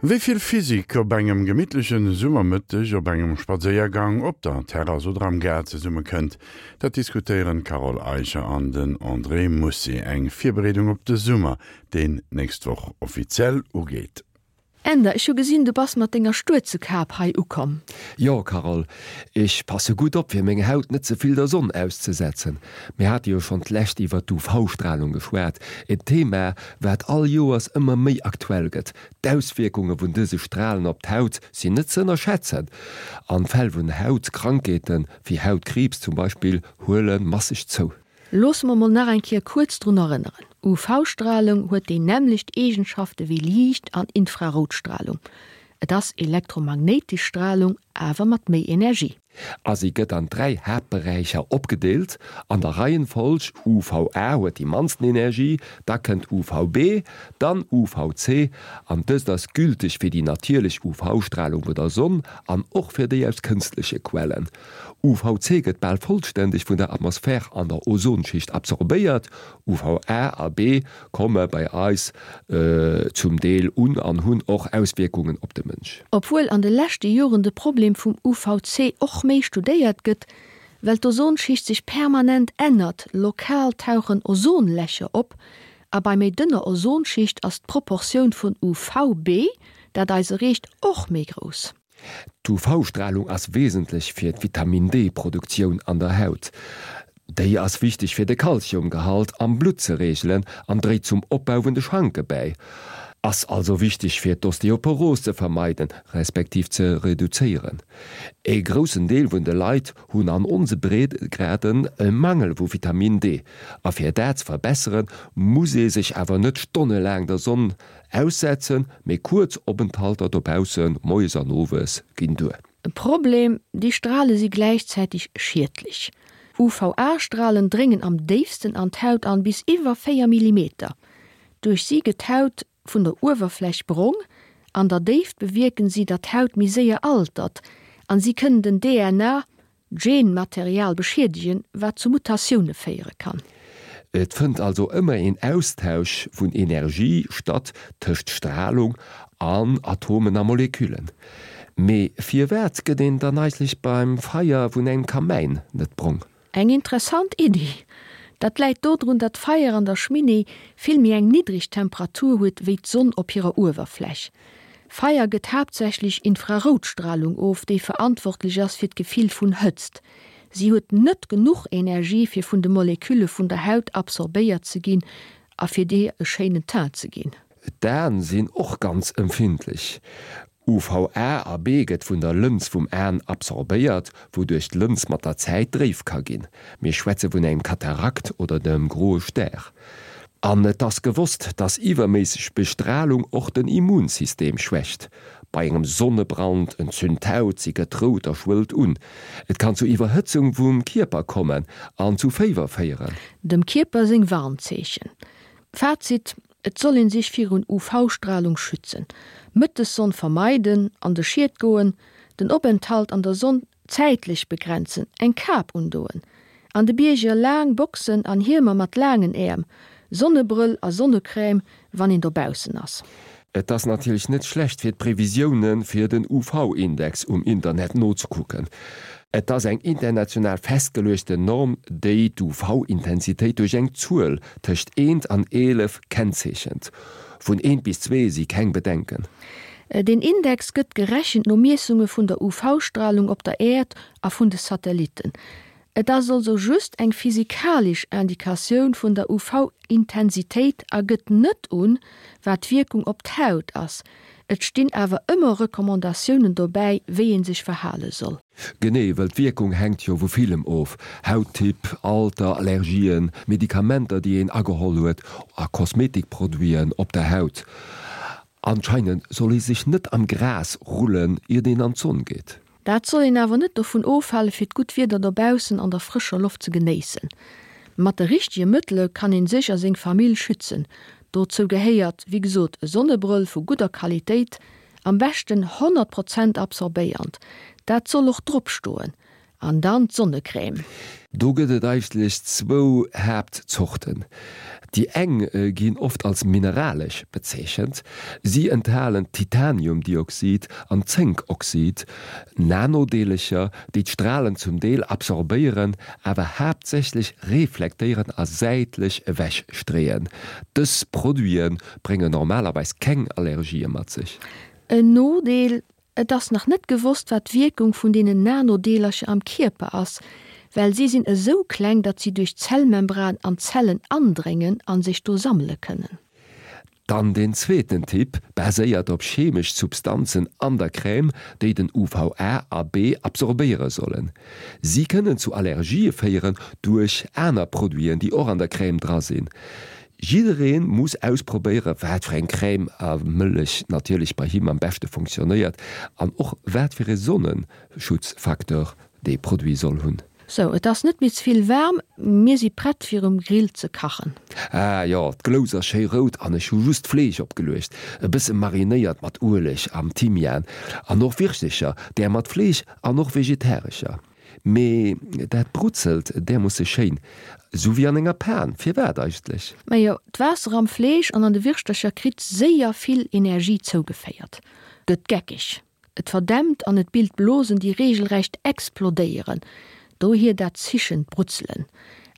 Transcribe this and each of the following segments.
Wéi vill Physik op engem gemittleche Summermëtteg op engem Spadséiergang, op der Terrass oder am Gaart zesumme kënnt, dat diskutéieren d'Carole Eicher an den André Mussi. Eng Virbereedung op de Summer, deen nächst Woch offiziell ugeet. Änder, ech hu gesinn, du bass mat denger Stuerzekap hei ukomm. Jo, Carole, ech passe gutt op, fir meng Haut net ze vill der Sonn auszesetzen. Mir hate jo schonn d'lescht iwwer d'UV-Stralung geschwat, en Thema, wat all Joers ëmmer méi aktuell gëtt. D'Auswierkunge vun dëse Stralen op d'Haut sinn net ze ënnerschätzen an d'Fäll vun Hautkrankheeten, wéi Hautkriibs zum Beispill, huele masseg zou. Loosse mer mol nach eng Kéier kuerz drun erënneren, UV-Stralung huet déi nämmlecht Eegenschafte wéi Liicht an Infraroutstralung. Et ass elektromagnéitesch Stralung, awer mat méi Energie. A si gëtt an 3 Haaptberäicher opgedeelt, an der Reihenfolg, UVA huet déi mannsten Energie, da kënnt UVB, dann UVC, an dëst ass gülteg fir déi natierlech UV-Stralung vun der Sonn an och fir déi aus kënstleche Quellen. UVC gëtt bal vollständeg vun der Atmosphär an der Ozonschicht absorbéiert, UVA a B komme bei eis zum Deel un an hunn och Auswierkungen op de Mënsch. Obwuel an de leschte Joren de Problem vum UVC och méi studéiert gëtt, well d'Ozonschicht sech permanent ännert, lokal tauchen Ozonlächer op, a bei méi dënner Ozonschicht ass d'Proportioun vun UVB, dat eis erreecht, och méi grouss. D'UV-Stralung ass wesentlech fir d'Vitamin-D-Produktioun an der Haut. Déi ass wichteg fir de Kalziumgehalt am Blutt ze reegelen an dréit zum Opbau vun de Schanke bäi. Ass also wichteg fir d'Osteoporos ze vermeiden, respektiv ze reduzéieren. E groussen Deel vun de Leit hunn an onse Breedegraden e Mangel vu Vitamin D a fir dat ze verbesseren, muss ee sech awer net stonnelaang der Sonn Aussetzen, mee kuerz Openthalter dobaussen, moies an owes, ginn duer. E Problem, déi Strale si gläichzäiteg schiedlech. UVA-Stralen dréngen am déifsten an d'Haut an, bis iwwer 4 Millimeter. Duerch si gëtt d'Haut vun der Uewerfläch brong. An der Déift bewierken si, datt d'Haut méi séier altert an si kënnen den DNA Genmaterial beschiedegen, wat zu Mutatioune féiere kann. Et fënnt also ëmmer een Austausch vun Energie statt tëscht Stralung an Atomen a Moleküllen. Mee firwat gëtt een dann eigentlech beim Feier vun engem Kamäin net brong? Eng interessant Iddi. Dat läit dodrun, datt d'Feier an der Schminee vill méi eng niddreg Temperatur huet wéi d'Sonn op hirer Uewerfläch. Feier gëtt haaptsächlech Infraroutstralung of, déi verantwortlech ass fir d'Gefill vun Hëtzt. Si huet net genuch Energie fir vun de Molekülle vun der Haut absorbéiert ze ginn a fir dir e schéinen Teint ze ginn. D'Aen sinn och ganz empfindlech. UVA a B gëtt vun der Lëns vum Aen absorbéiert, wouduerch d'Lëns mat der Zäit dréif ka ginn. Mir schwätze vun engem Katarakt oder dem groe Stär. An et ass gewosst, dass iwwerméisseg Bestralung och den Immunsystem schwächt. Bei engem Sonnebrand entzünt d'Haut, si gëtt rout a schwëllt un. Et kann zu Iwwerhëtzung vum Kierper kommen an zu Féiwer féieren. Dem Kierper seng Warnzeechen. Fazit, Et soll een sech virun UV-Stralung schützen, Mëttessonn vermeiden, an de Schied goen, den Openthalt an der Sonn zäitlech begrenzen, eng Kap undoen, an de Bierger laang Boxen an Hiemer mat laangen Äerm, Sonnebrëll a Sonnecrème wann een dobaussen ass. Et ass natierlech net schlecht fir d'Previsioune fir den UV-Index um Internet nozekucken. Et ass eng international festgeluechten Norm, déi d'UV-Intensitéit duerch eng Zuel tëscht eent an 11 kennzeechent. Vun eent bis zwee si keng Bedenken. Deen Index gëtt gerechent no Miessunge vun der UV-Stralung op der Äerd a vun de Satellitten. Et ass also just eng physikalesch Indikatioun vun der UV-Intensitéit a gëtt net un, wat d'Wierkung op d'Haut ass. Et stinn awer ëmmer Recommandatiounen dobäi, wéi ee sech verhale soll. Genee, well d'Wierkung hänkt jo vu villem of, Hauttyp, Alter, Allergien, Medikamenter déi een ageholl huet a Kosmetikproduiten op der Haut. Anscheinend soll ee sech net am Gras rullen iert een an d'Sonn geet. Dat soll een awer net dovun ofhale fir d'gutt Wieder dobaussen an der frëscher Loft ze genéissen. Mat de richtege Mëttele kann een sech a seng Famill schützen. Dozou gehéiert wéi gesot e Sonnebrëll vu gudder Qualitéit, am beschten 100 Prozent absorbéiernd, dat soll och drop stoen, an dann d'Sonnecrème. Do gëtt et eigentlech zwou Haaptzorten. Déi eng ginn oft als mineralesch bezeechent. Si enthalen Titaniumdioxid an Zénkoxid, Nanodeelercher, déi d'Stralen zum Deel absorbéieren, awer haaptsächlech reflektéieren a säitlech ewech streeën. Dës Produite bréngen normalerweis keng Allergië mat sech. En Nodeel, Et ass nach net gewosst, wat d'Wierkung vun deenen Nanodeelercher am Kierper ass, well si sinn esou kleng, datt si duerch d'Zellmembran an d'Zellen andréngen a sech do sammele kënnen. Dann deen zweeten Typ baséiert op chemesch Substanzen an der Crème, déi den UVA a B absorbéiere sollen. Si kënnen zu Allergië féieren duerch aner Produiten, déi och an der Crème dra sinn. Jidderee muss ausprobéiere wat fir eng Crème a Mëllech natierlech bei him am beschte funktionéiert an och wat fir ee Sonneschutzfacteur dee Produit soll hunn. Sou, et ass net méi ze vill waarm, mir si prett fir um Grill ze kachen. Ah jo, d'Glous ass schéi rout an ech hu just d'Fleesch opgeluecht, e bësse marinéiert mat Ueleg am Thymian an och Wirschtecher, där mat Fleesch an och vegetarescher. Mee dat brutzelt därmoosse schéin, sou wéi an enger Pan. Firwat eigentlech? Majo, d'Waasser am Fleesch an an de Wirschtercher kritt séier vill Energie zougeféiert, gëtt geckeg, et verdämpt an et bilt Blosen, déi reegelrecht explodéieren, dohier dat zischend Brutzelen.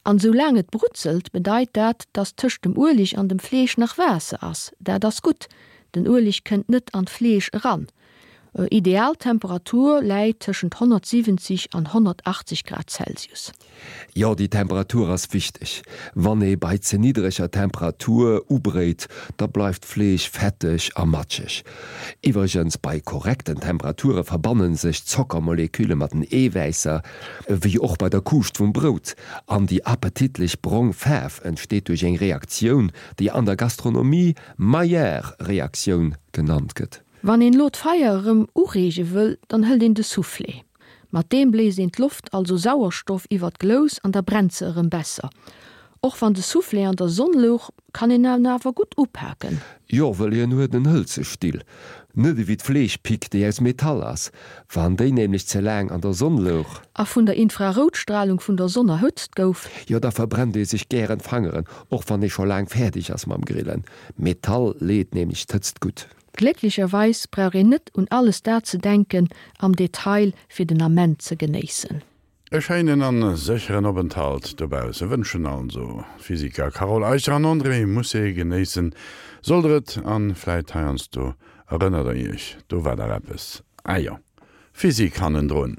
An sou laang et brutzelt, bedeit dat, dass tëscht dem Ueleg an dem Fleesch nach Waasser ass. Dat ass gutt, den Ueleg kënnt net an d'Fleesch eran. Ideal Temperatur läit tëschent 170 an 180 Grad Celsius. Jo, déi Temperatur ass wichteg. Wann ee bei ze niddreger Temperatur ubréit, da bleift d'Fleesch fetteg a matscheg. Iwwregens, bei korrekten Temperature verbanne sech d'Zockermolekülle mat den Eewäisser, wéi och bei der Kuuscht vum Brout, an déi appetitlech brong Faarf entsteet duerch eng Reaktioun, déi an der Gastronomie Maillard-Reaktioun genannt gëtt. Wann een elo d'Feier erëm ureege wëll, dann hëlt een de Soufflé. Mat deem bléist een d'Loft, also Sauerstoff, iwwer d'Glous an da brennt se erëm besser. Och wann de Soufflé an der Sonn louch, kann een en awer gutt upaken. Jo, wëll hien huet en hëlze Still, net ewéi d'Fleeschpick, déi aus Metall ass. Wann déi nämlech ze laang an der Sonn louch. A vun der Infraroutstralung vun der Sonn erhëtzt gouf. Jo, da verbrennt ee sech gären d'Fangeren, och wann ee scho laang fäerdeg ass mam Grillen. Metall leet nämlech d'Hëtzt gutt. Glécklecherweis brauch een net un alles dat ze denken am Detail fir den Ament ze genéissen. E schéinen an sécheren Openthalt dobausse wënschen also Physiker Carole Eicher an André Mousset. Genéissen sollt der et an vläit heiansdo erënnert der iech, do war dach eppes, ah jo, Physik hannendrun.